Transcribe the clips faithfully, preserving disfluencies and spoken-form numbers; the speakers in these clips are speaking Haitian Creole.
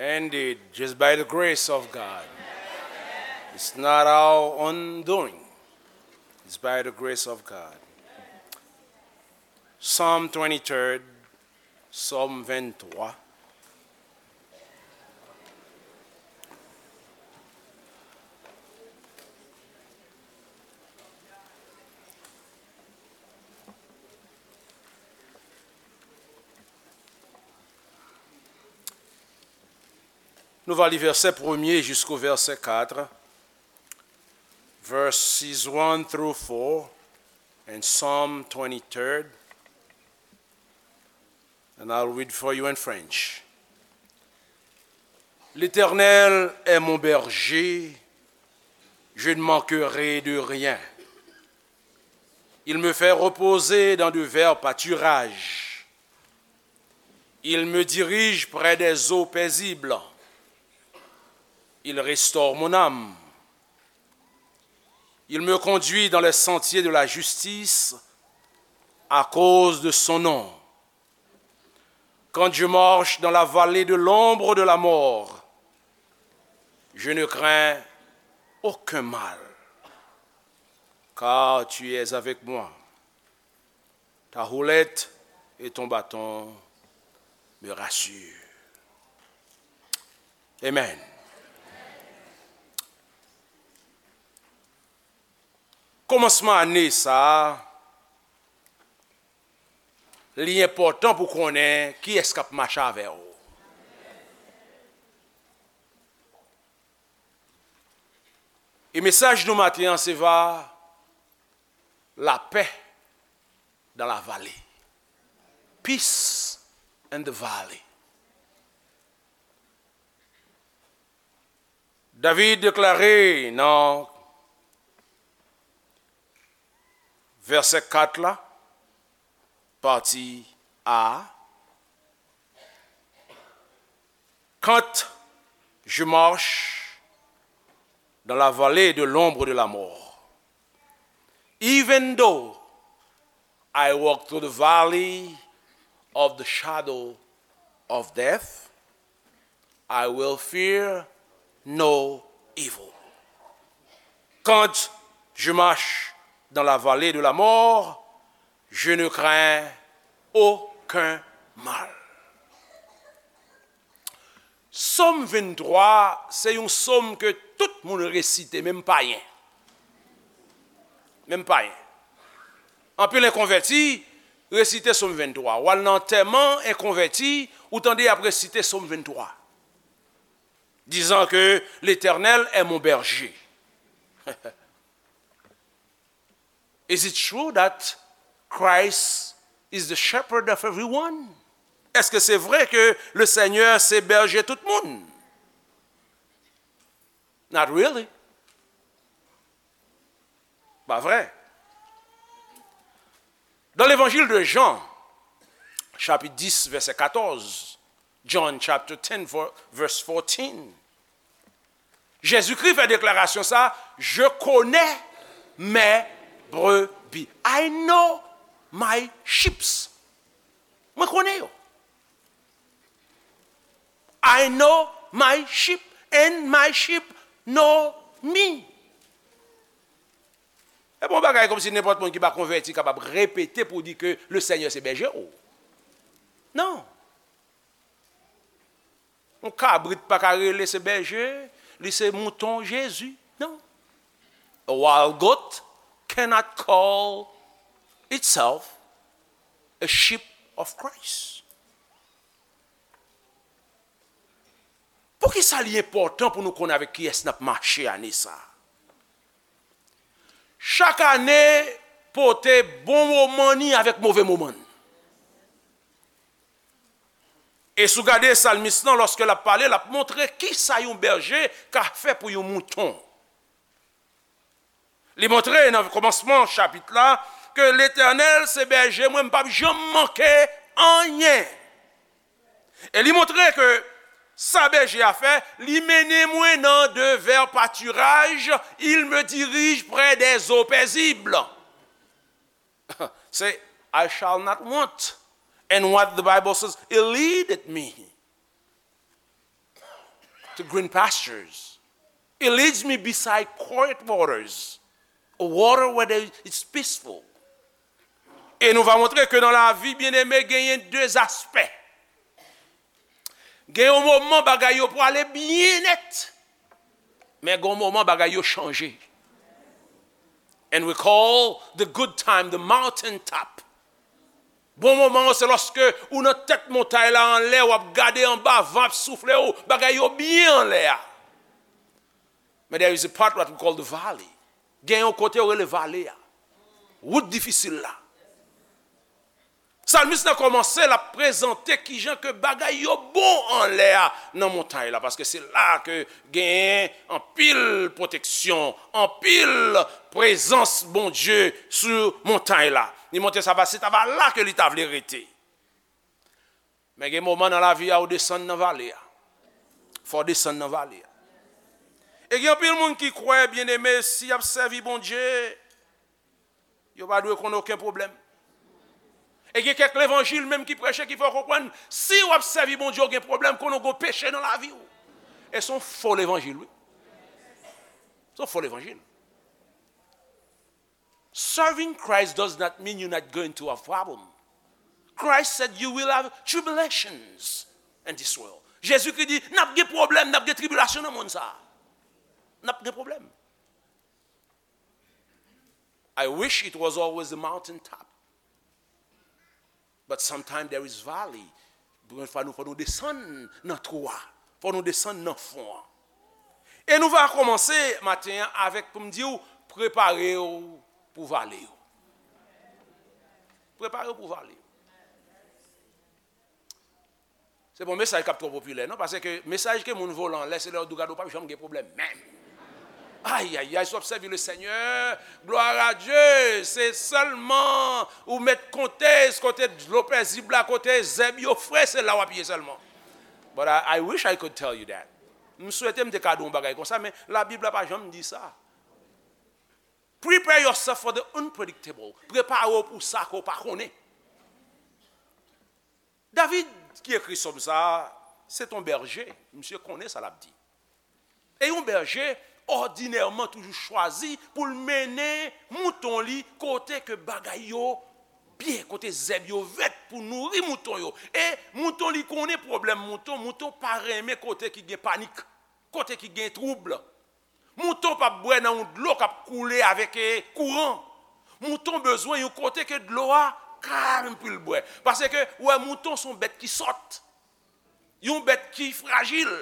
Indeed, just by the grace of God. It's not our own doing. It's by the grace of God. Psalm twenty-third, Sòm venntwa. Nou va li vèsè premye jisko vèsè kat, verses one through four, and Psalm twenty-third, and I'll read for you in French. L'Éternel est mon berger, je ne manquerai de rien. Il me fait reposer dans de verts pâturages. Il me dirige près des eaux paisibles. Il restaure mon âme. Il me conduit dans les sentiers de la justice à cause de son nom. Quand je marche dans la vallée de l'ombre de la mort, je ne crains aucun mal, car tu es avec moi. Ta houlette et ton bâton me rassurent. Amen. Kòmansman ane sa a, li enpòtan pou konnen kiyès k ap mache avè w. E mesaj nou maten an se va la paix dans la vallée. Peace in the valley. David deklare nan vèsè kat la, pati A, quand je marche dans la vallée de l'ombre de la mort, even though I walk through the valley of the shadow of death, I will fear no evil. Quand je marche dans la vallée de la mort, je ne crains aucun mal. Sòm venntwa, se yon sòm ke tout moun resite, menm payen. Menm payen. Anpil enkonvèti resite Sòm venntwa. W al nan antèman enkonvèti, ou tande y ap resite Sòm venntwa, disant que l'Éternel est mon berger. Is it true that Christ is the shepherd of everyone? Èske se vre ke le Senyè se bèje tout moun? Not really. Pa vre. Dans l'évangile de Jean, chapitre dix, verset quatorze, John chapter ten, verse fourteen, Jezikri fè deklarasyon sa, je connais mes brebis. I know my sheep. Mwen konnen yo. I know my sheep and my sheep know me. E bon bagay kòmsi nenpòt moun ki pa konvèti kapab repete pou di ke le Senyè se bèje w. Non. Yon kabrit pa ka rele se bèje, li se mouton Jezi. Non. A wild goat cannot call itself a sheep of Christ. Poukisa li enpòtan pou nou konn avèk kiyès n ap mache ane sa a? Chak ane pote bon moman ni avèk move moman n. E si w gade salmis lan, lòske l ap pale, l ap montre kisa yon bèje ka fè pou yon mouton. Li montre nan kòmansman chapit la ke Letènèl se bèje mwen, m p ap janm manke anyen. E li montre ke sa bèje a fè, li mennen mwen nan de vè patiraj, il me dirige près des eaux paisibles. Se I shall not want. And what the Bible says, it leadeth me. green pastures. It leads me beside quiet waters, a water where there, it's peaceful. E nou va montre ke nan lavi, byeneme, genyen de aspè. Gen yon moman bagay yo pwale byen nèt, men gen yon moman bagay yo chanje. And we call the good time the mountain top. Bon moman an, se lòske ou nan tèt montay la anlè, w ap gade anba, van ap soufle w, bagay yo byen anlè a. Men there is a part what we call the valley. Gen yon kote yo rele vale a. Wout difisil la. Salmis la kòmanse, l ap prezante kijan ke bagay yo bon anlè a nan montay la, paske se la ke genyen anpil pwoteksyon, anpil prezans Bondye sou montay la. Li montre sa va, se ta va la ke li ta vle rete. Men gen moman nan lavi a, ou desann nan vale a. Fò w desann nan vale a. E gen anpil moun ki kwè, byeneme, si y ap sèvi Bondye, yo pa dwe konn okenn pwoblèm. E gen kèk levanjil menm ki preche, ki fè w konprann, si w ap sèvi Bondye, w gen pwoblèm, konnen w gen peche nan lavi w. E se yon fo levanjil, wi. Se yon fo levanjil. Serving Christ does not mean you're not going to have problem. Christ said you will have tribulations in this world. Jezikri di, n ap gen pwoblèm, n ap gen tribilasyon nan mond sa a. N ap gen pwoblèm. I wish it was always the mountain top. But sometimes there is valley. Gen fwa nou, fò nou desann nan twou a. Fò nou desann nan fon an. E nou va kòmanse maten an avèk pou m di w, prepare w pou vale yo. Prepare w pou vale yo. Se pa yon mesaj k ap twò popilè, non, paske mesaj ke moun volan anlè, se lè yo di w gade w p ap janm gen pwoblèm menm. Ay, ay, ay, si w ap sèvi le Senyè, gloire à Dieu, se sèlman ou mèt konte kote dlo pezib la, kote zèb yo fre, se la w ap ye sèlman. But I, I wish I could tell you that. M swete m te ka di w yon bagay konsa, men Labib la pa janm di sa. Prepare yourself for the unpredictable. Prepare w pou sa ke w pa konnen. David ki ekri sòm sa a, se t on bèje, misye konnen sa l ap di. E yon bèje, òdinèman, toujou chwazi pou l mennen mouton li kote ke bagay yo byen, kote zèb yo vèt pou nouri mouton yo. E mouton li konnen pwoblèm mouton, mouton pa renmen kote ki gen panik, kote ki gen twoub. Mouton p ap bwè nan yon dlo k ap koule avèk, eh, kouran. Mouton bezwen yon kote ke dlo a kalm pou l bwè. Paske, ou wè, mouton se yon bèt ki sòt. Yon bèt ki frajil.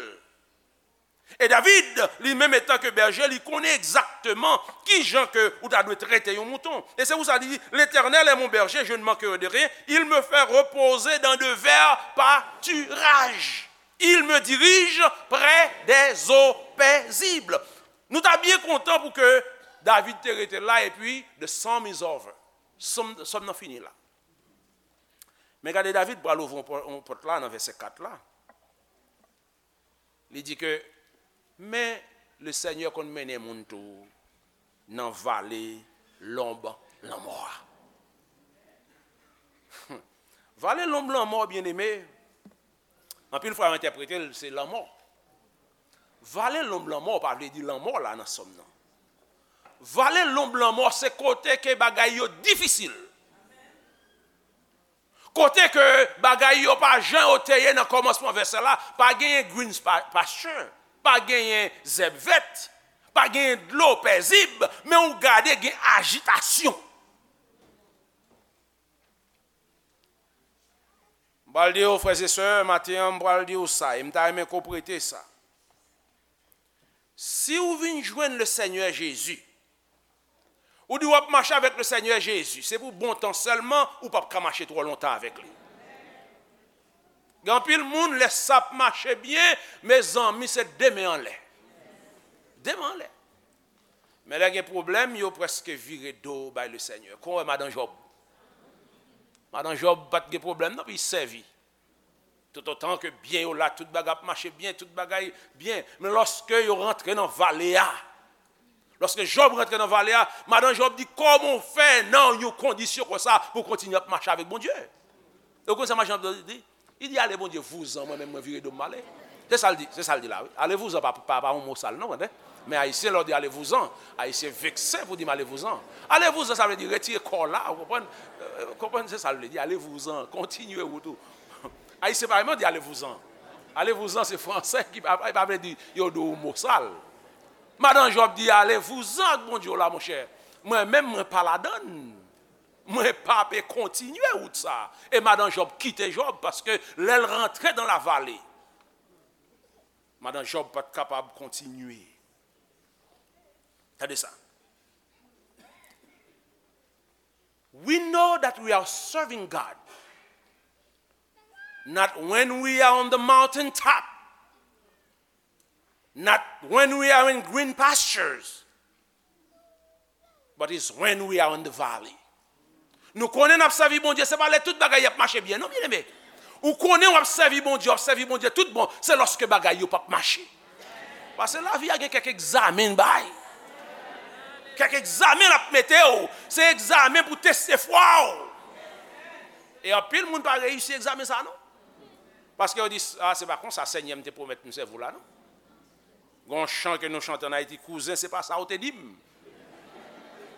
E David, li menm etan ke bèje, li konnen egzakteman ki jan ke ou ta dwe trete yon mouton. E se pou sa li di, L'Éternel est mon berger, je ne manquerai de rien. Il me fait reposer dans de verts pâturages. Il me dirige près des eaux paisibles. Nou ta byen kontan pou ke David te rete la epi the psalm is over. Sòm, sòm nan fini la. Men gade, David pral ouvri yon pò-, yon pòt la nan vèsè kat la. Li di ke, men Lesenyè konn mennen moun tou nan vale lonb lanmò a. Vale lonb lanmò, byeneme, anpil fwa yo entèprete l se lanmò. Vale lonb lanmò pa vle di lanmò la nan sòm nan. Vale lonb lanmò se kote ke bagay yo difisil. Kote ke bagay yo pa jan yo te ye nan kòmansman vèsè la, pa genyen green pa-, pasture, pa genyen zèb vèt, pa genyen dlo pezib, men ou gade gen ajitasyon. M pral di w, frè e sè, maten an, m pral di w sa, e m ta renmen ke w prete sa. Si w vin jwenn Lesenyè Jezi, ou di w ap mache avèk Lesenyè Jezi, se pou bon tan sèlman, ou p ap ka mache twò lontan avèk li. Gen anpil moun, lè sa ap mache byen, mezanmi, se de men anlè. De men anlè. Men lè gen pwoblèm, yo prèske vire do bay Lesenyè. Kon wè madan Jòb. Madan Jòb pa t gen pwoblèm non, pou l sèvi. Toutotan ke byen yo la, tout bagay ap mache byen, tout bagay byen. Men lòske yo rantre nan vale a, lòske Jòb rantre nan vale a, madan Jòb di, kòman w fè nan yon kondisyon konsa pou w kontinye ap mache avèk Bondye? Ou konn sa madan Jòb di? Li di, ale Bondye, vouzan, mwen menm mwen vire do m ale. Se sa l di, se sa l di la, wi. Allez-vous-en pa, pa, pa yon mo sal, non, tande. Men Ayisyen, lè w di allez-vous-en, Ayisyen vekse pou di m allez-vous-en. Allez-vous-en, sa vle di retire kò w la, ou konprann? Euh, konprann, se sa l vle di, allez-vous-en, kontinye wout ou. Ayisyen pa renmen di allez-vous-en. Allez-vous-en, se fransè ki pa, pa vle di yo di w yon mo sal. Madan Jòb di, allez-vous-en ak Bondye w la, monchè. Mwen menm, mwen pa ladann. Mwen pa pe kontinye wout sa. E madan Jòb kite Jòb, paske lè l rantre dans la vallée, madan Jòb pa t kapab kontinye. Tande sa. We know that we are serving God, not when we are on the mountain top, not when we are in green pastures, but it's when we are in the valley. Nou konnen n ap sèvi Bondye, se pa lè tout bagay ap mache byen, non, byeneme. Ou konnen w ap sèvi Bondye, w ap sèvi Bondye tout bon, se lòske bagay yo p ap mache. Paske lavi a gen kèk egzamen l bay. Kèk egzamen l ap mete w, se egzamen pou teste fwa w. E anpil moun pa reyisi egzamen sa, non. Paske yo di, a, se pa konsa Senyè m te pwomèt m sèvi w la, non. Gon chan ke nou chante ann Ayiti, kouzen, se pa sa w te di m.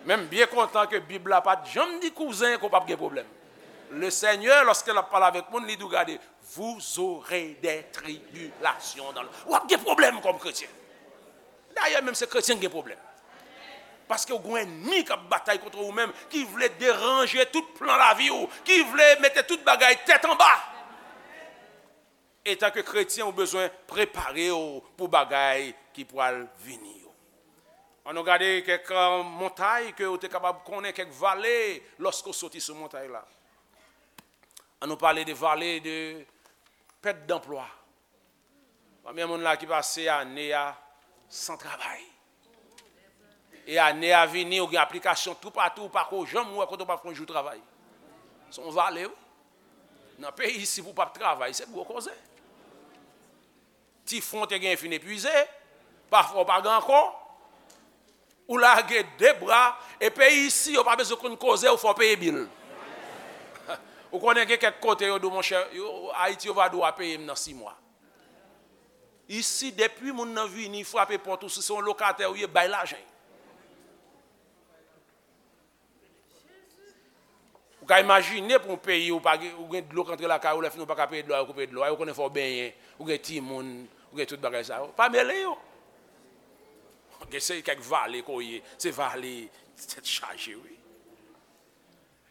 Men m byen kontan ke Bib la pa t janm di kouzen ke w p ap gen pwoblèm. Le Seigneur, lòske l ap pale avèk moun, li di w, gade, vous aurez des tribulations dans le, w ap gen pwoblèm kòm kretyen. Dayè, menm se kretyen ki gen pwoblèm. Paske w gen yon ènmi k ap batay kont ou menm, ki vle deranje tout plan lavi w, ki vle mete tout bagay tèt anba. Etanke kretyen, ou bezwen prepare w pou bagay ki pral vini yo. Ann nou gade kèk, euh, montay ke w te kapab konnen, kèk vale, lòske w soti sou montay la. Ann nou pale de vale de pèt danplwa. Konbyen moun la ki pase ane a san travay? E ane a vini, ou gen aplikasyon toupatou, ou pa ko janm wè kote w pa fè yon jou travay. Se yon vale, wi. Nan peyi isi, pou w p ap travay, se gwo koze. Ti fon w te gen fin epuize, pafwa w pa gen ankò. Ou lage de bra, e peyi isi, yo pa bezwen konn koze, ou fè w peye bil. Ou konnen gen kèk kote, yo di w, monchè, yo, Ayiti, yo va di w a peye m nan sis mwa. Isi, depi moun nan vini, frape pòt ou, si se yon lokatè ou ye, bay lajan. Ou ka imajine pou yon peyi ou pa gen, ou gen dlo k antre lakay ou, lè fini ou pa ka peye dlo a, yo koupe dlo a, yo konnen fò w benyen, ou gen timoun, ou gen tout bagay sa yo. Pa mele yo. Gen se kèk vale ke w ye, se vale tèt chaje, wi.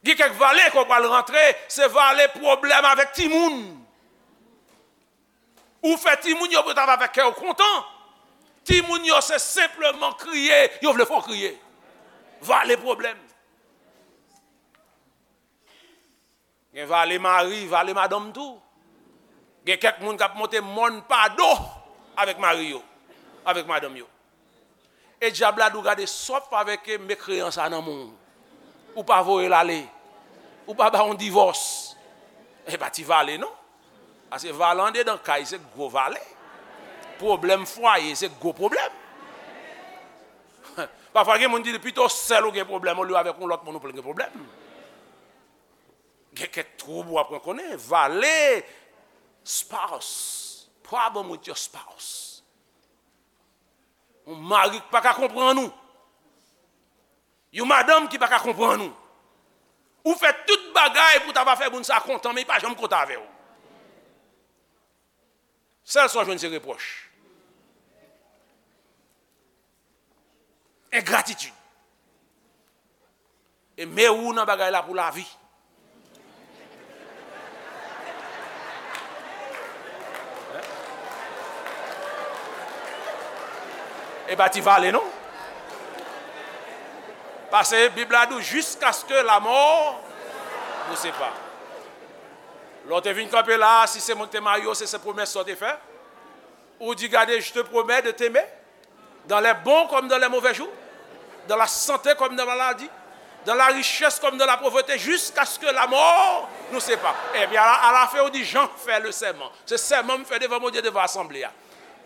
Gen kèk vale ke w pral rantre, se vale pwoblèm avèk timoun. Ou fè timoun yo pou yo ta va fè kè w kontan. Timoun yo se senpleman kriye, yo vle fè w kriye. Vale pwoblèm. Gen vale mari, vale madanm tou. Gen kèk moun k ap monte mòn pa do avèk mari yo, avèk madanm yo. E dyab la di w, gade, sa w ap fè avèk, e, mekreyan sa nan men w. Ou pa voye l ale. Ou pa ba yon divòs. E pa ti vale, non. Paske vale andedan kay, se gwo vale. Pwoblèm fwaye, se gwo pwoblèm. Pafwa, gen moun di, pito sèl ou gen pwoblèm, olye avèk yon lòt moun ou pral gen pwoblèm. Gen kèk twoub w ap rankonnen, vale, spouse, problem with your spouse. Yon mari k pa ka konprann ou. Yon madanm ki pa ka konprann ou. Ou fè tout bagay pou ta va fè moun sa kontan, men li pa janm kontan avè w. Sèl sa w jwenn se repwòch. Engratitid. E men ou nan bagay la pou lavi. E pa ti vale, non. Paske Bib la di w, jiskaske lamò nou separe. Lè w te vin kanpe la a, si se moun k te marye w, se, se pwomès sa w te fè. Ou di, gade, je te promets de t'aimer dans les bons comme dans les mauvais jours, dans la santé comme dans la maladie, dans la richesse comme dans la pauvreté, jusqu'à ce que la mort nous sépare. Epi alafen ou di, Jan fè le sèman. Se sèman m fè devan Bondye, devan asanble a.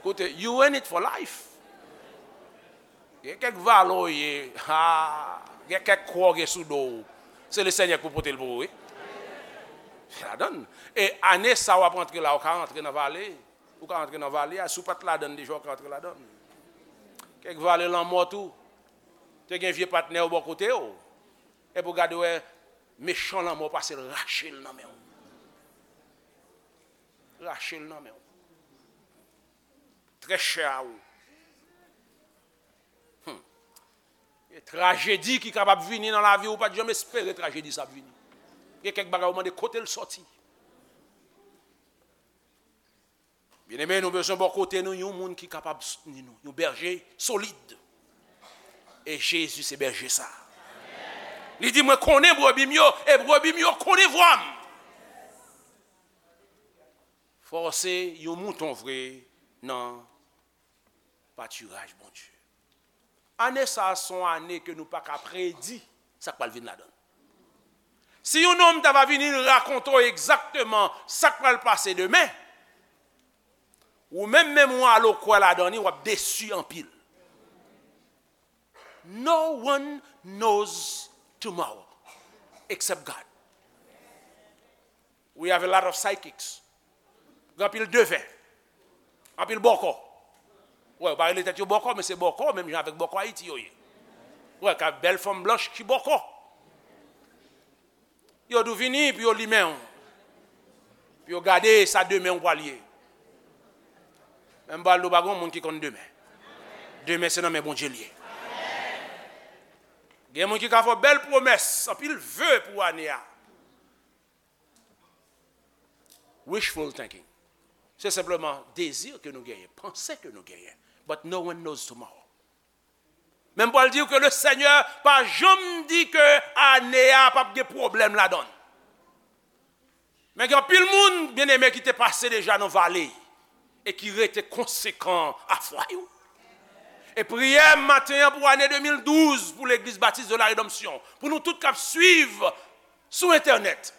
Koute, you in it for life. Gen kèk vale w ye, ha, gen kèk kwa w gen sou do w. Se le Senyè k pou pote l pou ou, wi. Se ladan l. E ane sa w ap rantre la, ou ka rantre nan vale. Ou ka antre nan vale a, si w pa t ladan l deja, ou ka antre ladan l. Kèk vale lanmò tou. Te gen vye patnè w bò kote w. Epi w gade w wè mechan lanmò pase l rache l nan men w. Rache l nan men w. Trè chè a ou. Hmm. E trajedi ki kapab vini nan lavi ou, ou pa t janm espere trajedi sa ap vini. Gen kèk bagay ou mande kote l sòti. Byeneme, nou bezwen bò kote nou yon moun ki kapab soutni nou, yon bèje solid. E Jezi se bèje sa. Li di, "Mwen konnen brebi m yo, e brebi m yo konnen vwa m." Fò w se yon mouton vre nan patiraj Bondye. Ane sa a se yon ane ke nou pa ka predi sa k pral vin ladan l. Si yon nonm ta va vini rakonte w egzakteman sa k pral pase demen, ou menm, menm ou al ou kwè ladan li, w ap desi anpil. No one knows tomorrow except God. We have a lot of psychics. Gen anpil devè. Anpil bòkò. Wè, yo pa rele tèt yo bòkò, men se bòkò, menm jan avèk bòkò Ayiti yo ye. Wè, ka bèl fanm blanch ki bòkò. Yo di w vini pou yo limen w. Pou yo gade sa demen w pral ye. Men m pral di w pa gen moun ki konn demen. Demen se nan men Bondye l ye. Gen moun ki ka fè w bèl pwomès, anpil ve pou ane a. Wishful thinking. Se senpleman dezi ke nou genyen, panse ke nou genyen. But no one knows tomorrow. Men m pral di w ke le Senyè pa janm di ke ane a p ap gen pwoblèm ladan l. Men gen anpil moun, byeneme, ki te pase deja nan vale e ki rete konsekan a fwa yo. E priyè m maten an pou ane de mil douz pou Legliz Batis de la Redanmsyon, pou nou tout k ap swiv sou entènèt,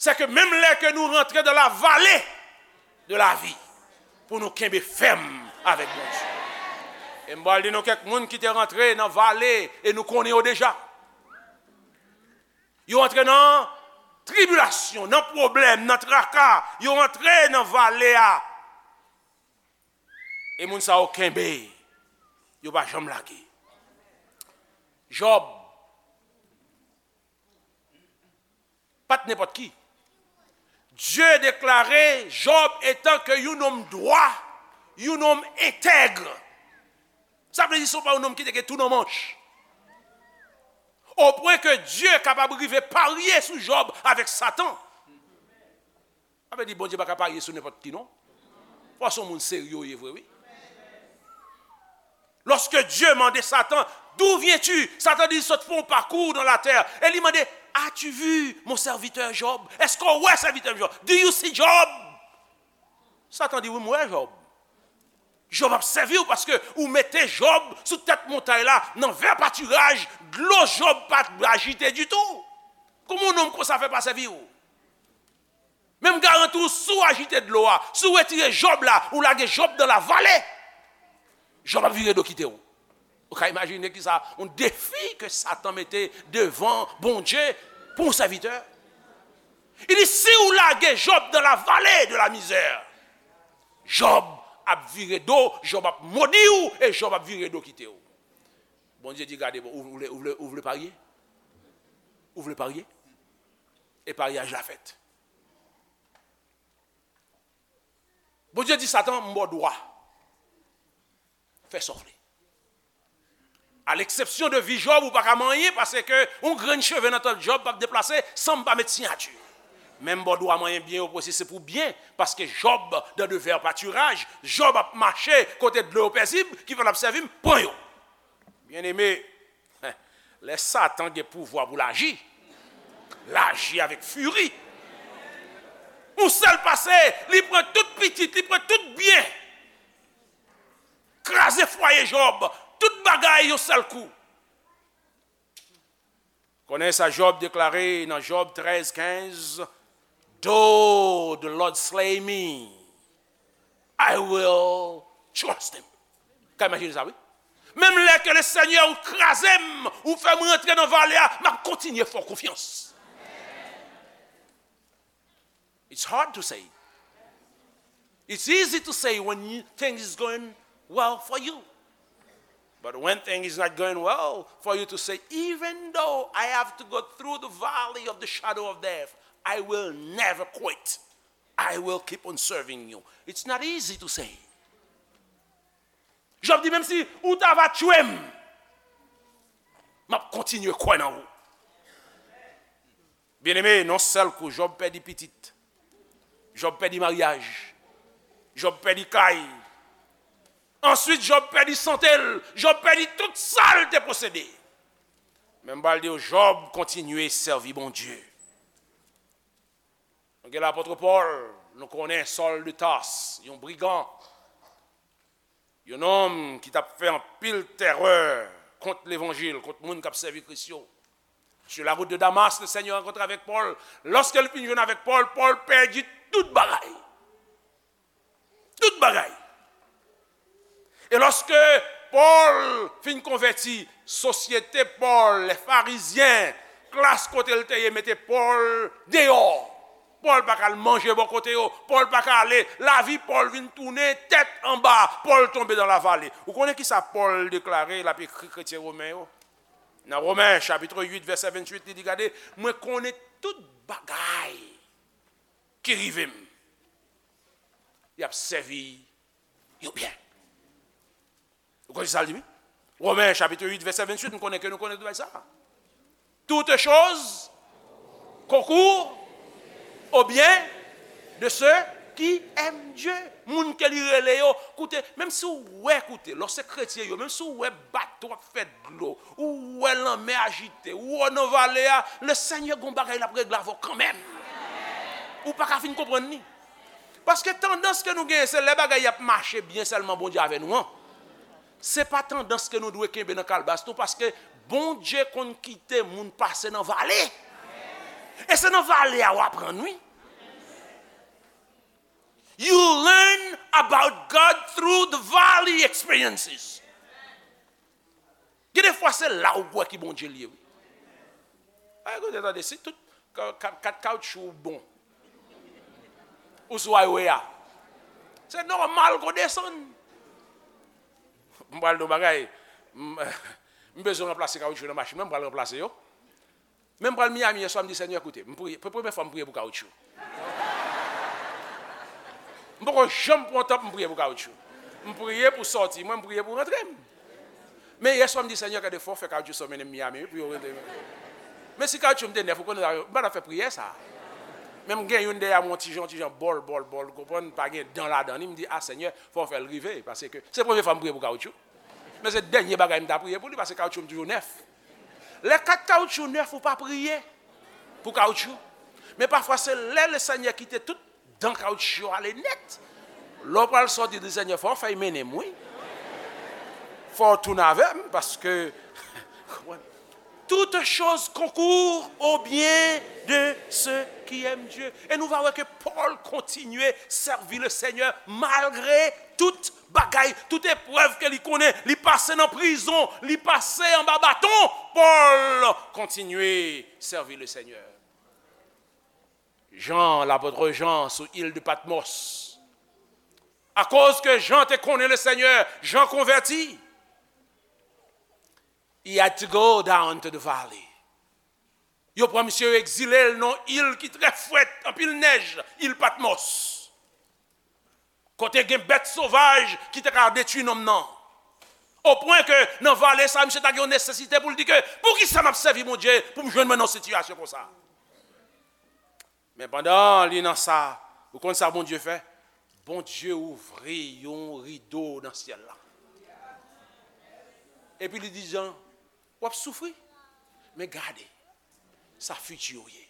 se ke menm lè ke nou rantre dans la vallée de la vie, pou nou kenbe fèm avèk Bondye. E m pral di nou kèk moun ki te rantre nan vale e nou konnen yo deja. Yo antre nan tribilasyon, nan pwoblèm, nan traka. Yo antre nan vale a. E moun sa yo kenbe. Yo pa janm lage. Jòb pa t nenpòt ki. Dye deklare Jòb etan ke yon nonm dwa, yon nonm entèg. Sa vle di se pa yon nonm ki te gen tou nan manch. O pwen ke Dye kapab rive parye sou Jòb avèk Satan. Sa vle di Bondye pa ka parye sou nenpòt ki non. Fò se yon moun serye w ye vre, wi. Lorsque Dieu mande Satan, d'où viens-tu? Satan di, sot fè yon pakou dans la terre. E li mande, as-tu vu mon serviteur Job? Èske w wè sèvitè m Jòb? Do you see Job? Satan di, wi, m wè Jòb. Jòb ap sèvi w paske ou mete Jòb sou tèt montay la, nan vè patiraj, dlo Jòb pa t ajite ditou. Kòman yon nonm konsa fè pa sèvi w? Menm garanti w, si w ajite dlo a, si w retire Jòb la, ou lage Jòb dans la vallée, Jòb ap vire do kite w. Ou ka imajine kisa yon defi ke Satan mete devan Bondye pou yon sèvitè. Li di, si w lage Jòb dans la vallée de la misère, Jòb ap vire do, Jòb ap modi w, e Jòb ap vire do kite w. Bondye di, gade, bon, ou vle, ou vle, ou vle parye? Ou vle parye? E paryaj la fèt. Bondye di Satan, m ba w dwa. Fè sa w vle. A leksepsyon de vi Jòb, ou pa ka manyen, paske yon grenn cheve nan tèt Jòb p ap deplase san m pa met siyati. Men m ba w dwa manyen byen yo pou se pou byen, paske Jòb dans de verts pâturages, Jòb ap mache kote dlo yo pezib, ki fè l ap sèvi m, pran yo. Byeneme, lè Satan gen pouvwa pou l aji, l aji avèk firi. Yon sèl pase, li pran tout pitit, li pran tout byen. Kraze fwaye Jòb, tout bagay yon sèl kou. Konnen sa Jòb deklare nan Jòb trèz kenz, "Though the Lord slay me, I will trust him." Ka imajine sa, wi. Menm lè ke le Senyè ou kraze m, ou fè m rantre nan vale a, m ap kontinye fè w konfyans. It's hard to say. It's easy to say when you, things is going well for you. But when things is not going well for you to say, "Even though I have to go through the valley of the shadow of death, I will never quit. I will keep on serving you." It's not easy to say. Jòb di, "Menm si ou ta va tchwe m, m ap kontinye kwè nan ou." Byeneme, nan sèl kou, Jòb pèdi pitit. Jòb pèdi maryaj. Jòb pèdi kay. Answit, Jòb pèdi sante l. Jòb pèdi tout sa l te posede. Men m pral di w, Jòb kontinye sèvi Bondye. Nou gen lapòt Pòl, nou konnen Sòl de Tas, yon brigan, yon nonm ki t ap fè anpil tèrè kont levanjil, kont moun k ap sèvi Kris yo. Sur la route de Damas, le Seigneur rencontre avec Paul. Lòske l fin jwenn avèk Pòl, Pòl pèdi tout bagay. Tout bagay. E lòske Pòl fin konvèti, sosyete Pòl, lè Farizyen, klas kote l te ye, mete Pòl deyò. Pòl pa ka al manje bò kote yo. Pòl pa ka ale. Lavi Pòl vin tounen tèt anba. Pòl tonbe nan lavale. Ou konnen ki sa Pòl deklare, l ap ekri kretyen women yo? Nan Women, chapit uit, vèsè venntuit, li di, "Gade, mwen konnen tout bagay ki rive m. Y ap sèvi yo byen." Ou konnen sa l di, wi? Women, chapit uit, vèsè venntuit, m konnen ke nou konnen tout bagay sa. "Toutes choses concourent au bien de ceux qui aiment Dieu." Moun ke li rele yo, koute, menm si w wè, koute, lòske kretyen yo, menm si w wè bato ap fè dlo, ou wè lanmè ajite, ou wè nan vale a, le Senyè gon bagay l ap regle avè w kanmenm. Ou pa ka fin konprann li. Paske tandans ke nou genyen, se lè bagay y ap mache byen sèlman Bondye avè nou an. Se pa tandans ke nou dwe kenbe nan kalbas nou, paske Bondye konn kite moun pase nan vale. E se nan vale a w aprann, wi. You learn about God through the valley experiences. Gen de fwa se la ou wè ki Bondye l ye, wi. Ay, koute, tande, si tout ka-, ka-, kat kawoutchou ou bon, ou sou highway a, se nòmal ke w desann. M pral di w bagay, m, m bezwen ranplase kawoutchou nan machin mwen, m pral ranplase yo. Men m pral Miami yèswa, m di, "Senyè, koute, m priye, pre-, premye fwa m priye pou kawoutchou." M poko janm pran tan pou m priye pou kawoutchou. M priye pou sòti mwen, m priye pou rantre m. Men yèswa m di, "Senyè, gade, fò w fè kawoutchou sa w mennen m Miami, wi, pou yo rantre." Men si kawoutchou m te nèf, ou konnen, m pa t ap fè priyè sa. Men m gen youn dèyè mwen, yon ti jan, yon ti jan bòl, bòl, bòl, ou konprann, pa gen dan ladan li, m di, "A, Senyè, fò w fè l rive," paske se premye fwa m priye pou kawoutchou. Men se dènye bagay m ta priye pou li, paske kawoutchou m toujou nèf. Lè kat kawoutchou nèf, ou pa priye pou kawoutchou. Men pafwa, se lè Lesenyè kite tout dan kawoutchou yo ale nèt. Lè w pral sòti, di, "Senyè, fò w fè y mennen m, wi. Fò w tounen avè m, paske," Toutes choses concourent au bien de ceux qui aiment Dieu. E nou va wè ke Pòl kontinye sèvi Lesenyè malgre tout bagay, tout eprèv ke li konnen, li pase nan prizon, li pase anba baton, Pòl kontinye sèvi Lesenyè. Jan, lapòt Jan sou il de Patmos. Akoz ke Jan te konnen Lesenyè, Jan konvèti. He had to go down to the valley. Yo pran misye, yo egzile l nan il ki trè frèt, anpil nèj, il Patmos. Kote gen bèt sovaj ki te ka detwi nonm nan. Opwen ke nan vale sa, misye ta gen yon nesesite pou l di ke, "Poukisa m ap sèvi Bondye pou m jwenn mwen nan yon sitiyasyon konsa?" Men pandan li nan sa, ou konn sa Bondye fè? Bondye ouvri yon rido nan syèl la. Epi li di Jan, "W ap soufri, men gade sa fiti w ye.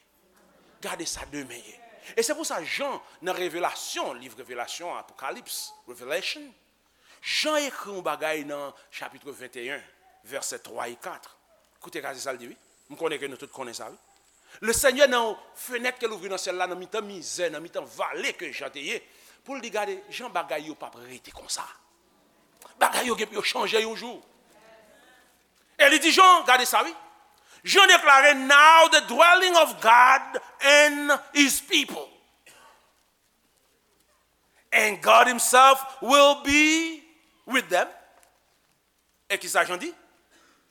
Gade sa demen ye." E se pou sa Jan, nan Revelasyon, liv Revelasyon, Apokalips, Revelation, Jan ekri yon bagay nan chapit venteyen, vèsè twa e kat. Koute, gade sa l di, wi. M konnen ke nou tout konnen sa, wi. Lesenyè, nan yon fenèt ke l ouvri nan syèl la, nan mitan mizè, nan mitan vale ke Jan te ye, pou l di, "Gade, Jan, bagay yo p ap rete konsa. Bagay yo gen pou yo chanje yon jou." E li di Jan, gade sa, wi. Jan deklare, "Now the dwelling of God and his people." And God himself will be with them. E ki sa Jan di?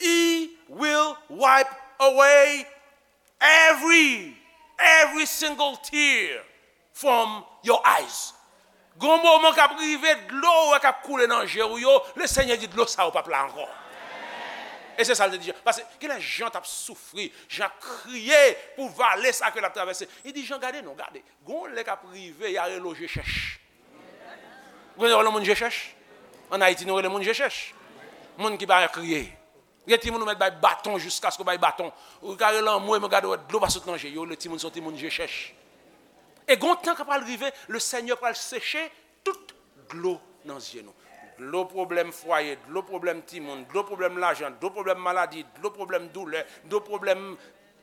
He will wipe away every, every single tear from your eyes. Gon moman k ap rive, dlo w wè k ap koule nan je w yo, Lesenyè di dlo sa yo p ap la ankò. E se sa l te di Jan. Paske genlè Jan t ap soufri, Jan ap kriye pou vale sa ke l ap travèse. Li di Jan, gade non, gade. Gon lè k ap rive, y a rele w je chèch. Ou konnen yo rele moun je chèch? Ann Ayiti, nou rele moun je chèch. Moun ki pa kriye. Gen timoun ou mèt bay baton jiskaske w bay baton. Ou ka rele anmwe, men gade w wè dlo pa sot nan je. Yo rele timoun se yon timoun je chèch. E gon tan k ap pral rive, Lesenyè pral seche tout dlo nan zye nou. Dlo pwoblèm fwaye, dlo pwoblèm timoun, dlo pwoblèm lajan, dlo pwoblèm maladi, dlo pwoblèm doulè, dlo pwoblèm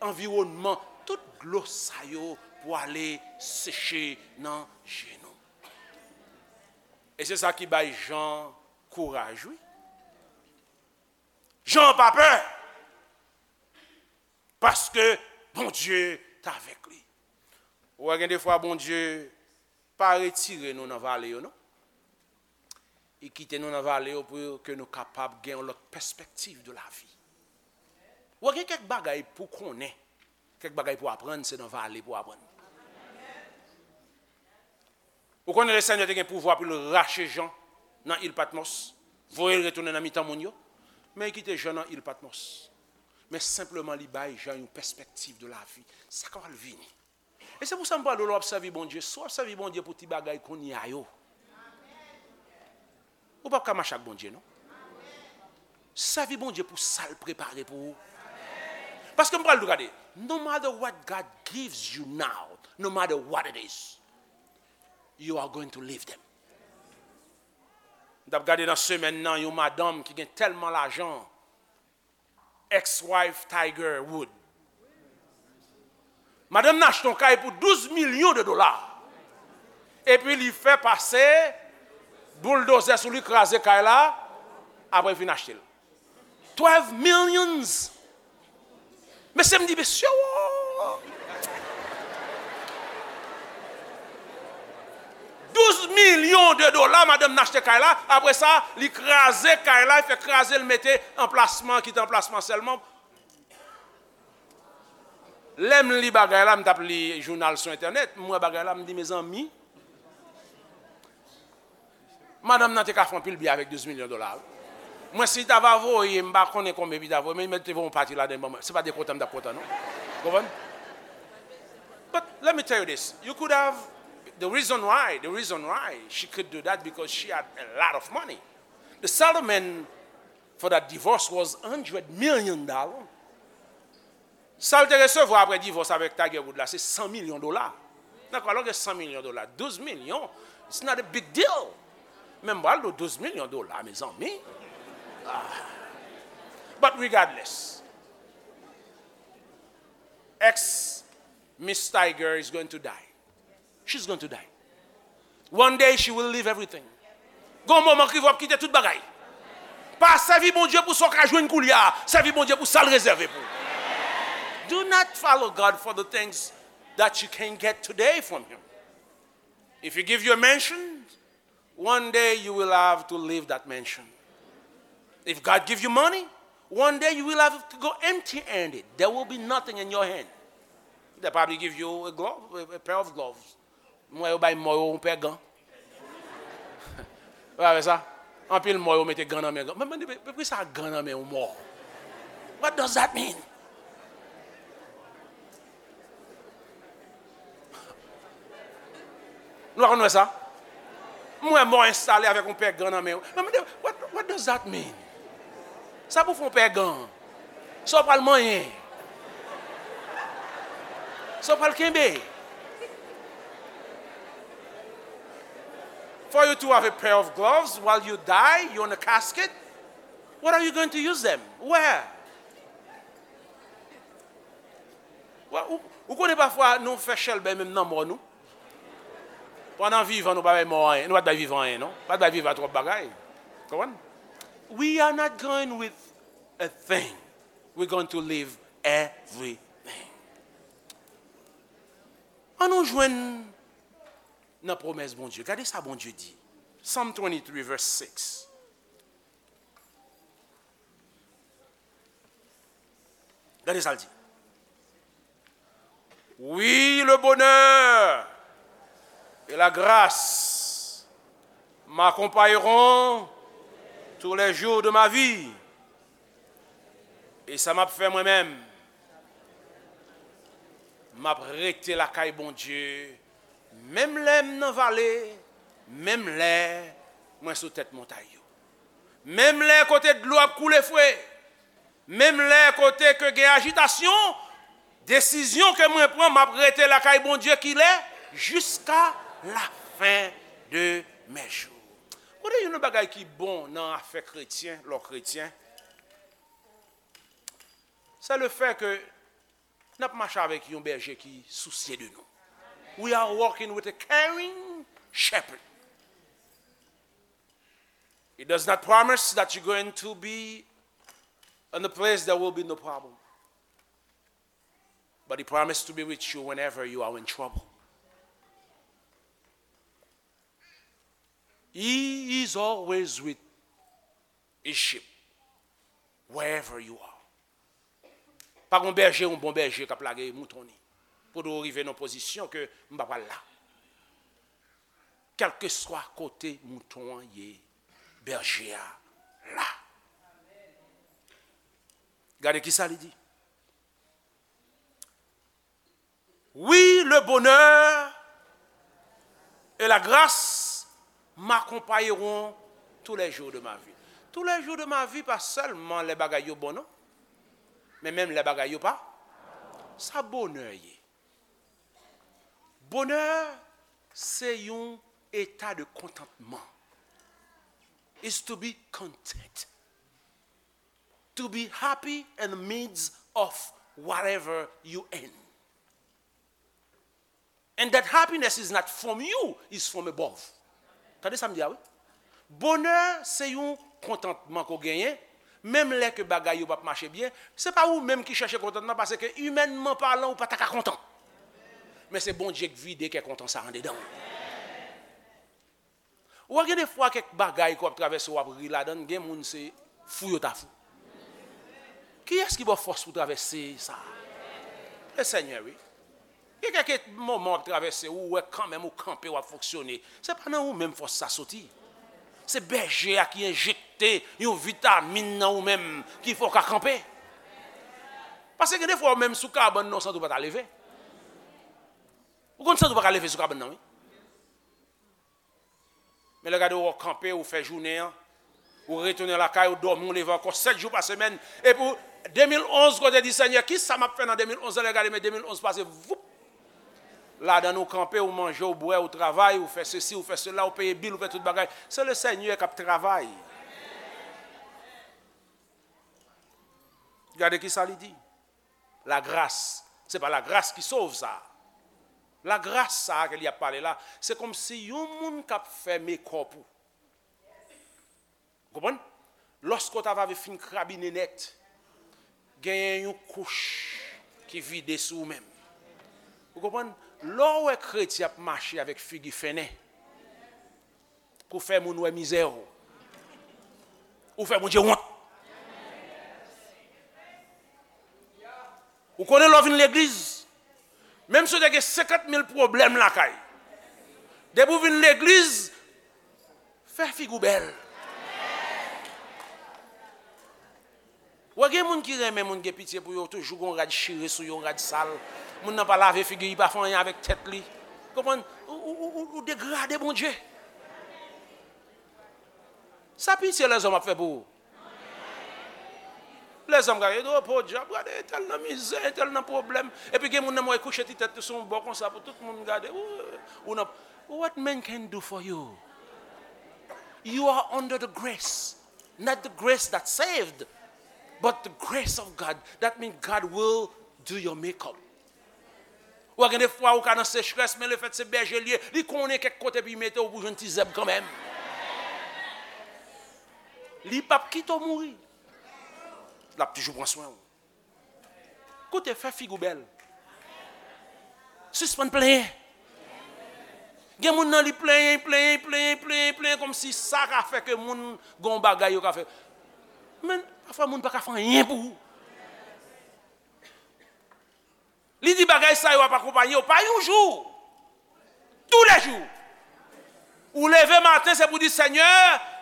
anviwònman. Tout dlo sa yo pwale seche nan je nou. E se sa ki bay Jan kouraj, wi. Jan pa pè, paske Bondye t avèk li. Ou wè, gen defwa Bondye pa retire nou nan vale yo, non. Li kite nou nan vale yo pou ke nou kapab gen yon lòt pèspektiv de lavi. Ou wè, gen kèk bagay pou konnen, kèk bagay pou aprann, se nan vale pou aprann. Ou konnen Lesenyè te gen pouvwa pou l rache Jan nan il Patmòs, voye l retounen nan mitan moun yo, men li kite Jan nan il Patmòs. Men senpleman li bay Jan yon pèspektiv de lavi, sa k ap vini. E se pou sa m pral di w, lè w ap sèvi Bondye, si w ap sèvi Bondye pou ti bagay kounye a yo, ou p ap ka mache ak Bondye, non. Sèvi Bondye pou sa l prepare pou ou. Paske m pral di w, gade, no matter what God gives you now, no matter what it is, you are going to live them. M t ap gade nan semèn nan yon madanm ki gen tèlman lajan, ex-wife Tiger Woods. Madanm nan achte yon kay pou douz milyon de dola. Epi li fè pase bouldozè sou li, kraze kay la, apre l fin achte l. Twelve millions. Mesye, m di, mesye, wo! Douz milyon de dola, madanm nan achte kay la. Apre sa, li kraze kay la, li fè kraze, li mete anplasman, kite anplasman sèlman. Lè m li bagay la, m t ap li jounal sou entènèt, m wè bagay la, m di, mezanmi, madanm nan te ka fè anpil byen avèk douz milyon dola, wi. Mwen, si l ta va voye, m pa konnen konbyen li ta voye, men li mèt te voye yon pati ladan l ban mwen. Se pa de kontan m t ap kontan, non. Konprann? But let me tell you this. You could have, the reason why, the reason why she could do that because she had a lot of money. The settlement for that divorce was hundred million dollar. Sa l te resevwa apre divòs avèk Tiger Woods la, se san milyon dola. Nan kwa lòt gen san milyon dola, douz milyon, it's not a big deal. Men m pral di w, douz milyon dola, mezanmi. Ah. But regardless, ex Miss Tiger is going to die. She's going to die. One day she will leave everything. Gon moman ki w ap kite tout bagay. Pa sèvi Bondye pou sa w ka jwenn koulye a. Sèvi Bondye pou sa l rezève pou ou. Do not follow God for the things that you can get today from him. If he give you a mansion, one day you will have to leave that mansion. If God give you money, one day you will have to go empty-handed. There will be nothing in your hand. They probably give you a glove, a, a pair of gloves. M wè yo bay mò yo yon pè gan. Ou pa wè sa? Anpil mò yo mete gan nan men gan. Mwen mande, men, men poukisa gan nan men yon mò? What does that mean? Nou pa konn wè sa? M wè mò enstale avèk yon pè gan nan men yo. Mwen mande, what, what does that mean? Sa pou fè yon pè gan? Sa w pral manyen? Sa w pral kenbe? For you to have a pair of gloves while you die, you're in a casket, what are you going to use them? Where? Wè, ou, ou konnen pafwa nou fè chèlbè menm nan mò nou. Pandan vivan, nou pa bay mò anyen. Nou pa t bay vivan anyen, non. Pa t bay vivan twòp bagay. Konprann? We are not going with a thing. We're going to leave everything. An nou jwenn nan pwomès Bondye. Gade sa Bondye di. Psalm twenty-three, verse six. Gade sa l di. Oui, le bonheur et la grâce m'accompagneront tous les jours de ma vie. E sa m ap fè mwen menm? M ap rete lakay Bondye, menm lè m nan vale, menm lè mwen sou tèt montay yo. Menm lè kote dlo ap koule fre, menm lè kote ke gen ajitasyon, desizyon ke mwen pran, m ap rete lakay Bondye kilè, jiska la fen de mes jours. Kote youn nan bagay ki bon nan afè kretyen, lè w kretyen, se le fè ke n ap mache avèk yon bèje ki sousye de nou. We are walking with a caring shepherd. It does not promise that you're going to be in a place there will be no problem. But he promised to be with you whenever you are in trouble. He is always with his sheep, wherever you are. Pa gon bèje, yon bon bèje k ap lage mouton ni. Pou w rive nan pozisyon ke m pa pral la. Kèlkeswa kote mouton an ye, bèje a la. Gade ki sa li di. Oui, le bonheur et la grâce m'accompagneront tous les jours de ma vie. Tous les jours de ma vie, pa sèlman lè bagay yo bon non, men menm lè bagay yo pa. Sa bonè ye. Bonè se yon eta de kontantman. Is to be content. To be happy in the midst of whatever you in. And that happiness is not from you, it's from above. Tande sa m di a wi. Bonè se yon kontantman ke w genyen, menm lè ke bagay yo p ap mache byen, se pa ou menm ki chèche kontantman, paske imènman palan ou pa ta ka kontan. Men se Bondye k vide kè kontan sa anndedan w. Ou wè gen defwa kèk bagay ke w ap travèse w ap ri ladan l, gen moun se fou yo ta fou. Kiyès ki ba w fòs pou travèse sa? Le Senyè wi. Gen kèk moman w ap travèse, ou wè kanmenm ou kanpe, w ap fonksyone. Se pa nan ou menm fòs sa soti. Se bèje a ki enjekte yon vitamin nan ou menm ki fè w ka kanpe. Paske gen defwa ou menm sou kabann nan ou santi w pa ta leve. Ou konn santi w pa ka leve sou kabann nan wi. Men lè gade w kanpe, ou fè jounen an, ou retounen lakay, ou dòmi, ou leve ankò sèt jou pa semèn. Epi w, de mil onz, kote di, Senyè, kisa m ap fè nan de mil onz la? Lè gade, men de mil onz pase, voup! Ladan l ou kanpe, ou manje, ou bwè, ou travay, ou fè sesi, ou fè sela, ou peye bil, ou fè tout bagay. Se le Senyè k ap travay. Gade kisa li di. Lagras, se pa lagras ki sove sa. Lagras sa a ke li ap pale la, se kòmsi yon moun k ap fè mekòp ou. Ou konprann? Lòske w ta va fin krabinen nèt, genyen yon kouch ki vide sou ou menm. Ou konprann? Lè w wè kretyen ap mache avèk figi fennen, pou fè moun wè mizè w. Ou fè Bondye wont. Ou konnen lè w vin legliz, menm si w te gen senkant mil pwoblèm lakay, depi w vin legliz, fè figi w bèl. Wè gen moun ki renmen moun gen pitye pou yo, toujou gon rad chire sou yo, rad sal. Moun nan pa lave figi, li pa fè anyen avèk tèt li. Konprann? Ou, ou, ou, ou, ou degrade Bondye. Sa pitye lèzòm ap fè pou ou? Lèzòm gade, oh, podyab, gade, entèl nan mizè, entèl nan pwoblèm. Epi gen moun nan mwen kouche ti tèt li sou yon bò konsa pou tout moun gade. Ou, ou nan, what man can do for you? You are under the grace. Not the grace that saved, but the grace of God. That means God will do your makeup. Ou gen de fwa ou ka nan sechrès, men lefèt se bèje l ye, li konnen kèk kote pou l mete w pou jwenn ti zèb kanmenm. Li p ap kite w mouri. L ap toujou pran swen w. Koute, fè figi w bèl. Sispann plenyen. Gen moun nan li plenyen, plenyen, plenyen, plenyen, plenyen, kòmsi sa ka fè ke moun gen yon bagay yo ka fè. Men, pafwa moun pa ka fè anyen pou ou. Li di bagay sa yo ap akonpanye w pa yon jou. Toulejou. Ou leve maten, se pou di, Senyè,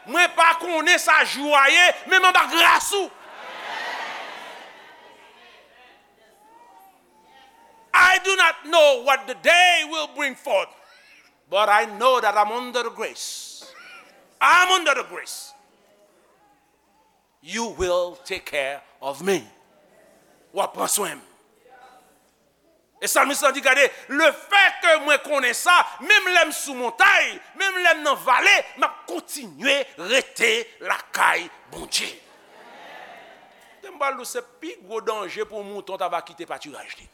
mwen pa konnen sa jou a ye, men m anba gras ou. I do not know what the day will bring forth, but I know that I'm under the grace. I'm under the grace. You will take care of me. W ap pran swen m. E salmis lan di, gade, lefètke mwen konnen sa, menm lè m sou montay, menm lè m nan vale, m ap kontinye rete lakay Bondye. Te m pral di w, se pi gwo danje pou yon mouton ta va kite patiraj li.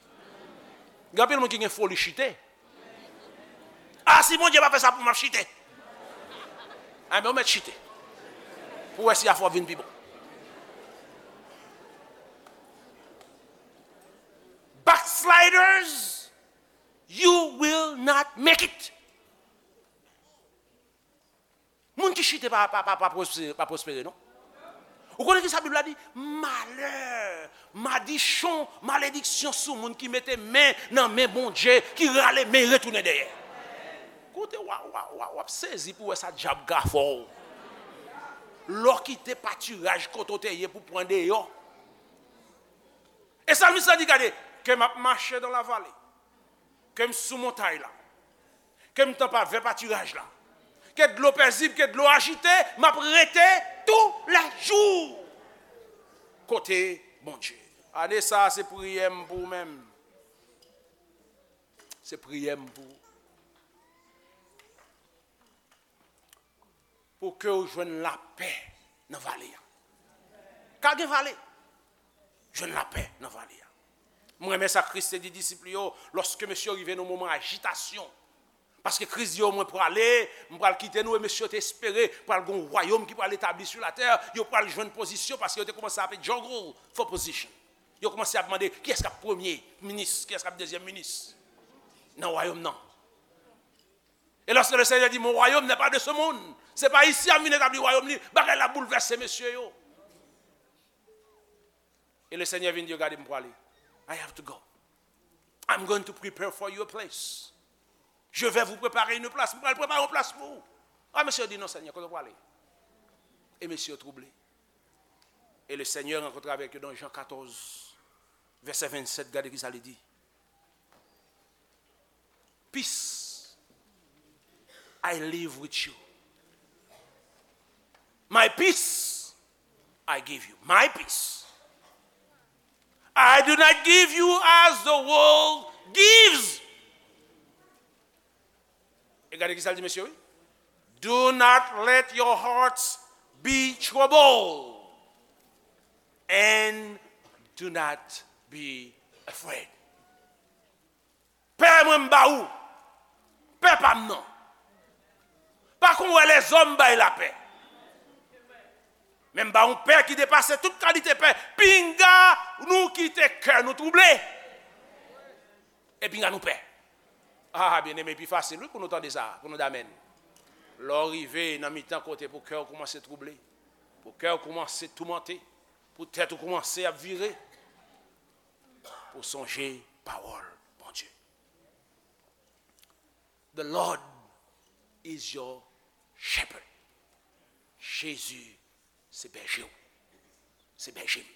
Gen anpil moun ki gen foli chite. A, si Bondye pa fè sa pou m, m ap chite. A, men ou mèt chite. Pou wè si afè w ap vin pi bon. Backsliders, you will not make it. Moun ki chite pa, pa, pa, pa pwospere, pa pwospere, non. Ou konnen ki sa Bib la di? Malè, madichon, malediksyon sou moun ki mete men nan men Bondye, ki rale men, retounen dèyè. Koute, w a, w a, w a, w ap sezi pou wè sa dyab ka fè w. Lè w kite patiraj kote w te ye pou pran deyò. E salmis la di, gade, ke m ap mache dans la vallée, ke m sou montay la, ke m tann pa vè patiraj la, ke dlo pezib, ke dlo ajite, m ap rete toulejou kote Bondye. Ane sa a, se priyè m pou ou menm. Se priyè m pou ou. Pou ke w jwenn lapè nan vale a. Ka gen vale. Jwenn lapè nan vale a. Mwen renmen sa Kris te di disip li yo, lòske mesye yo rive nan moman ajitasyon. Paske Kris di yo, mwen prale, m pral kite nou, e mesye yo te espere pral gen yon wayòm ki pral etabli sou latè, yo pral jwenn pozisyon, paske yo te kòmanse ap juggle for position. Yo kòmanse ap mande, kiyès k ap premye minis, kiyès k ap dezyèm minis nan wayòm nan. E lòske le Senyè di, mon royaume n'est pas de ce monde, se pa isi a m vin etabli wayòm li, bagay la boulvèse mesye yo. E le Senyè vin di yo, gade, m prale. I have to go. I'm going to prepare for you a place. Je vais vous préparer une place. M pral prepare yon plas pou ou. A, mesye yo di, non, Senyè, kote w prale? E mesye yo twouble. E le Senyè rankontre avèk yo nan Jan katòz, vèsè vennsèt, gade ki sa li di. Peace I leave with you. My peace I give you. My peace. I do not give you as the world gives. E gade ki sa l di mesye, wi. Do not let your hearts be troubled, and do not be afraid. Pè mwen m ba ou. Pè pa m nan. Pa kon wè lèzòm bay lapè. Men m ba ou pè ki depase tout kalite pè. Pinga nou kite kè nou twouble. E pinga nou pè. A, byeneme, pi fasil, wi, pou nou tande sa, pou nou damèn. Lè w rive nan mitan kote pou kè w kòmanse twouble, pou kè w kòmanse toumante, pou tèt ou kòmanse ap vire, pou sonje pawòl Bondye. The Lord is your shepherd. Jezi se bèje w. Se bèje m.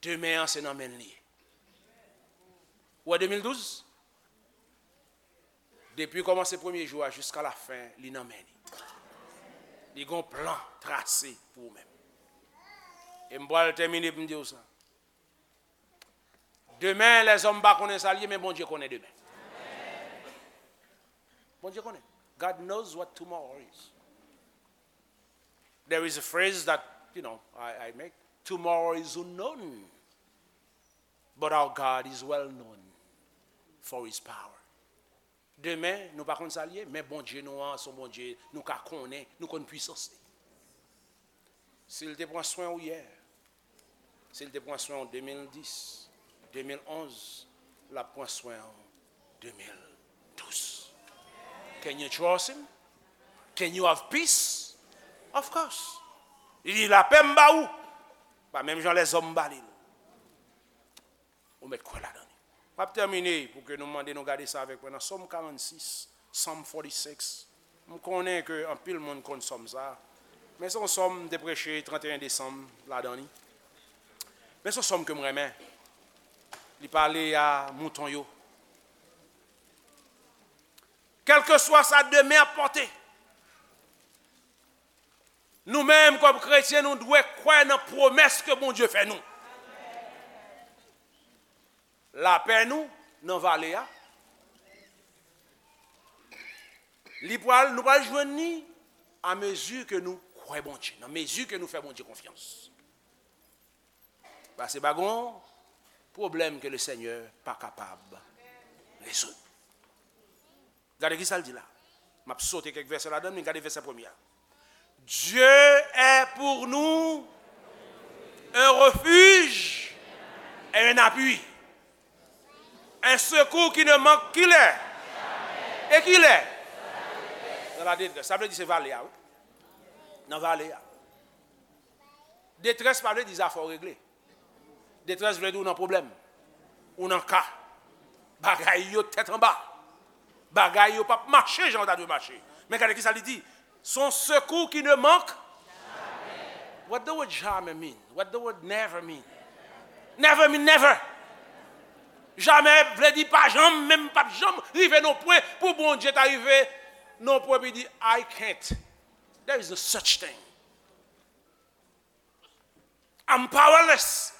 Demen an se nan men l li ye. Ou wè de mil douz? Depi kòmanse premye jou a jiska lafen, li nan men li. Li gon plan trase pou ou menm. E m pral tèmine pou m di w sa. Demen, lèzòm pa konnen sa l ye, men Bondye konnen demen. Bondye konnen. God knows what tomorrow is. There is a phrase that, you know, I, I make. Tomorrow is unknown, but our God is well known for his power. Demen, nou pa konn sa l ye, men Bondye nou an, se yon Bondye nou ka konnen, nou konn pwisans li. Si l te pran swen w yè, si l te pran swen w de mil dis, de mil onz, l ap pran swen w de mil douz. Can you trust him? Can you have peace? Of course. Li di, lapè m ba ou. Pa menm jan lèzòm ba li l. Ou mèt kwè ladan li. M ap tèmine pou ke nou mande nou gade sa avèk mwen nan Sòm karannsis, Psalm forty-six. M konnen ke anpil moun konn sòm sa a. Men se yon sòm m te preche trannteyen desanm ladan li. Men se yon sòm ke m renmen. Li pale a mouton yo. Kèlkeswa sa demen ap pòte, nou menm kòm kretyen, nou dwe kwè nan pwomès ke Bondye fè nou. Lapè nou nan vale a, li pral, nou pral jwenn li a mezi ke nou kwè Bondye, nan mezi ke nou fè Bondye konfyans. Paske pa gon pwoblèm ke le Senyè pa kapab rezoud. Gade ki sa l di la. M ap sote kèk vèsè ladan, men gade vèsè premye a. Dieu est pour nous un refuge et un appui, un secours qui ne manque qui lè. E ki lè? Dans la détresse. Sa vle di se vale a, wi. Nan vale a. Detrès pa vle di zafè w regle. Detrès vle di w nan pwoblèm. Ou nan ka. Bagay yo tèt anba. Bagay yo p ap mache jan yo ta dwe mache. Men gade ki sa li di. Son secours qui ne manque. What the word jamais mean? What the word never mean? Never mean never. Jamè vle di pa janm, menm p ap janm rive nan pwen pou Bondye ta rive nan pwen pou di, I can't. There is no such thing. I'm powerless.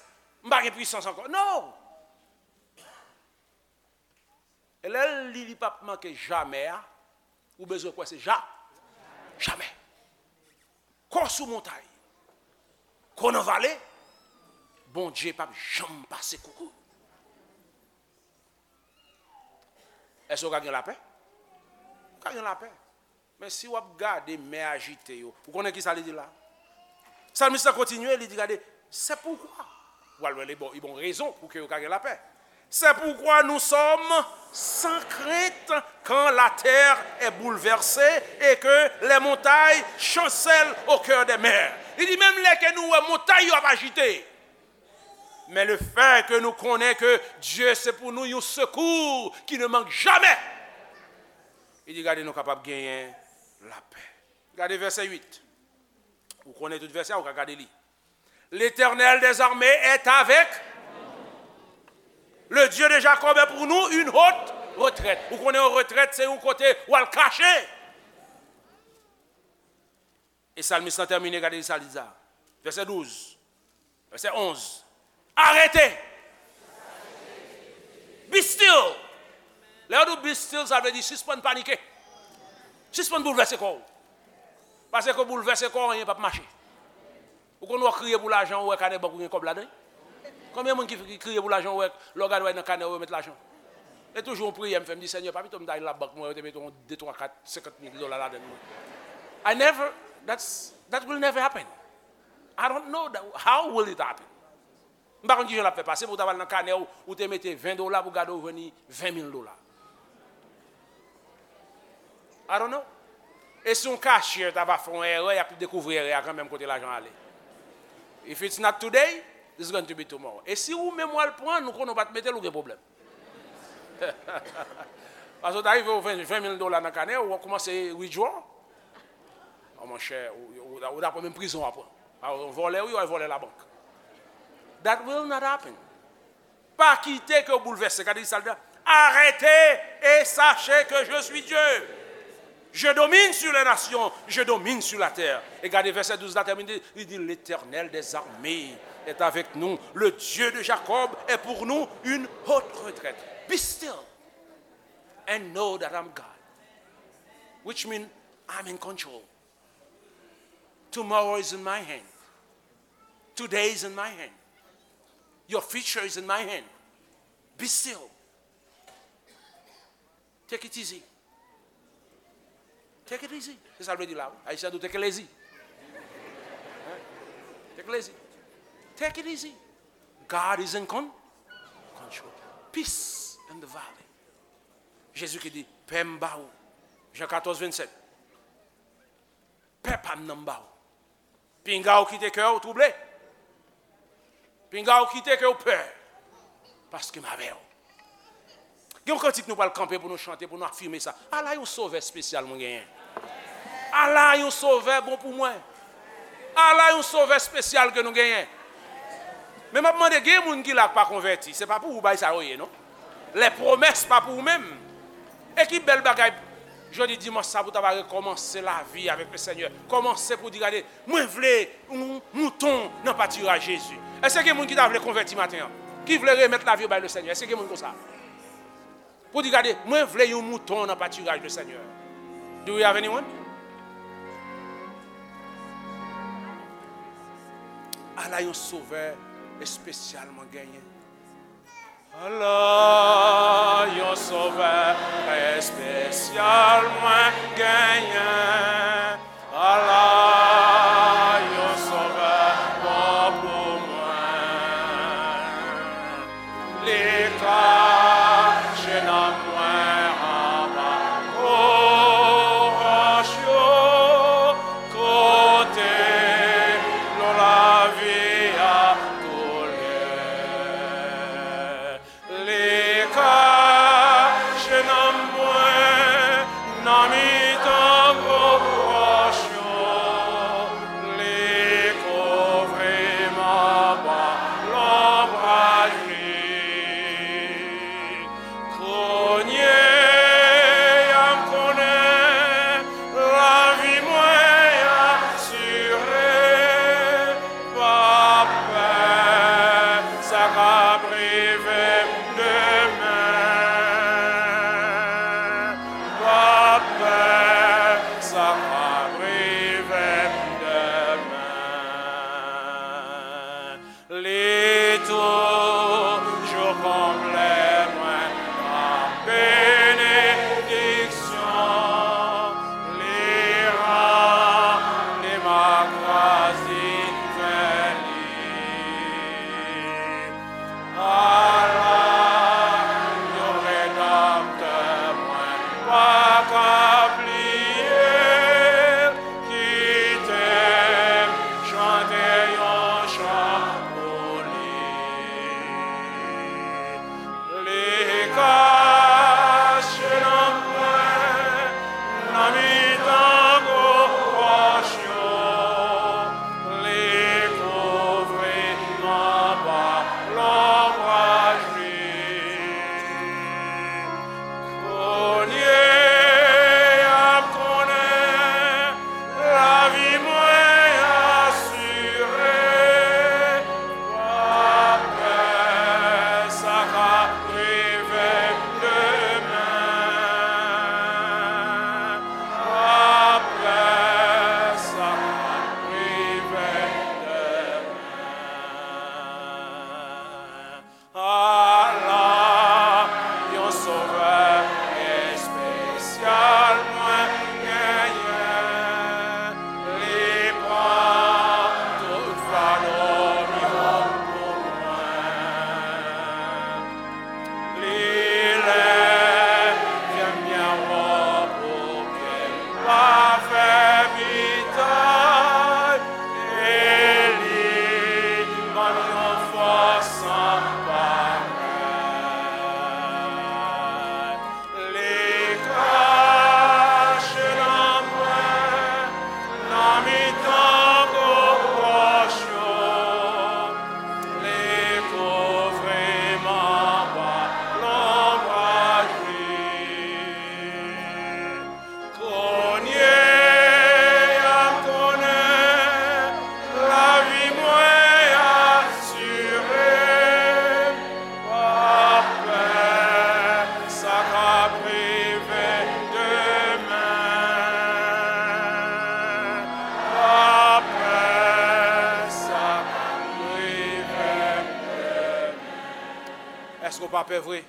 M pa gen pwisans ankò. No! E lè l li, li p ap manke jamè a, ou bezwen kwè se ja, jamè. Kò sou montay, kò nan vale, Bondye p ap janm pase koukou. Èske w ka gen lapè? Ou ka gen lapè. Men si w ap gade mè ajite yo, ou konnen ki sa li di la? Salmis la kontinye, li di, gade, c'est pourquoi. Ou al wè li bon, li bon rezon pou ke yo ka gen lapè. C'est pourquoi nous sommes sans crainte quand la terre est bouleversée et que les montagnes chancellent au cœur des mers. Li di, menm lè ke nou wè montay yo ap ajite, men le fait que nou konnen ke Dye se pou nou yon sekou ki ne mank jamè. Li di, gade, nou kapab genyen lapè. Gade vèsè uit. Ou konnen tout vèsè a, ou ka gade li. L'Éternel des armées est avec nous. Le Dieu de Jacob est pour nous une haute retraite. Ou konnen yon retrèt, se yon kote ou al kache. E salmis lan tèmine, gade sa li di sa. Vèsè douz, vèsè onz. Arete! Be still! Lè yo di w be still, sa vle di sispann panike. Sispann boulvèse kò w. Paske boulvèse kò w, anyen p ap mache. Ou konn wè w kriye pou lajan, ou wè kanè bank ou gen kòb ladan l? Konbyen moun ki, ki kriye pou lajan, ou wè lè w gade w nan kanè w yo met lajan? E toujou yon priyè m fè, m di, Senyè, pa pito m ta al labank mwen, yo te mete yon de, twa, kat, senkant mil dola ladan l mwen. I never, that's, that will never happen. I don't know that, how will it happen? M pa konn kijan l ap fè pase pou w ta pral nan kanè w, ou te mete ven dola pou gade w jwenn ven mil dola. I don't know. E si yon cashier ta va fè yon erè, y ap dekouvri erè a kanmenm kote lajan ale. If it's not today, it's going to be tomorrow. E si ou menm w al pran l, ou konnen w pa t mete l, ou gen pwoblèm. Paske w ta rive w ven, ven mil dola nan kanè, ou kòmanse withdraw. Oh, monchè, ou, ou, ou ta pran menm prizon w ap pran. A, yon vòlè, wi, yon vòlè labank. That will not happen. Pa kite ke w boulvèse. Gade sa l di. Arrêtez et sachez que je suis Dieu. Je domine sur les nations, je domine sur la terre. E gade vèsè douz la tèmine, li di, L'Éternel des armées est avec nous, le Dieu de Jacob est pour nous une haute retraite. Be still and know that I'm God, which means I'm in control. Tomorrow is in my hand. Today is in my hand. Your future is in my hand. Be still. Take it easy. Take it easy. Se sa l vle di la, wi. Ayisyen di w take it easy. Hein? Take it easy. Take it easy. God is in con-, control. Peace in the valley. Jezi ki di, pè m ba ou. Jan katòz vennsèt. Pè pa m nan m ba ou. Pinga w kite kè w twouble. Pinga w kite kè w pè. Paske m avè w. Gen yon kantik nou pral kanpe pou nou chante, pou nou afime sa. Ala yon sovè espesyal mwen genyen. Ala yon sovè bon pou mwen. Ala yon sovè espesyal ke nou genyen. Men m ap mande, gen moun ki la k pa konvèti. Se pa pou ou bay sa yo ye, non. Lè pwomès pa pou ou menm. E ki bèl bagay, jodi dimanch sa pou ta va rekòmanse lavi avèk le Senyè. Kòmanse pou di, gade, mwen vle yon mouton nan patiraj Jezi. Èske gen moun ki ta vle konvèti maten an? Ki vle remèt lavi yo bay le Senyè? Èske gen moun konsa? Pou di, gade, mwen vle yon mouton nan patiraj le Senyè. Do we have anyone? Ala yon sovè espesyal mwen genyen. Ala yon sovè espesyal mwen genyen. Ala yon sovè bon pou mwen. Li kache nanm mwen anba gwo wòch yo. Kote dlo lavi a koule. Li kache nanm mwen nan mitan gwo wòch yo. Li kouvri m anba lonbraj li. Kounye a m konnen lavi mwen asire. Pa pè sa k ap rive m demen. Pa pè sa k ap rive m demen. Li toujou konble mwen ak benediksyon. Li ranpli m ak gras divin li. Ala yon Redanmtè mwen pa ka bliye. Kite m chante yon chan pou li. Li kache nanm mwen nan mitan gwo wòch yo. Li kouvri m anba lonbraj li. Kounye a m konnen lavi mwen asire. Pa pè sa k ap rive m demen. Pa pè sa k ap rive m demen. Ala yon Sovè espesyal mwen genyen. Li pran tout fado m yo pou mwen. Li leve m byen wo pou ke m pa fè bitay. E li ban m yon fòs san parèy. Li kache nan mwen, nan mitan gwo wòch yo. Li kouvri m anba lonbraj li. Kounye a m konnen lavi mwen asire. Pa pè sa k ap rive demen. Pa pè sa k ap rive demen. Èske w pa pè vre?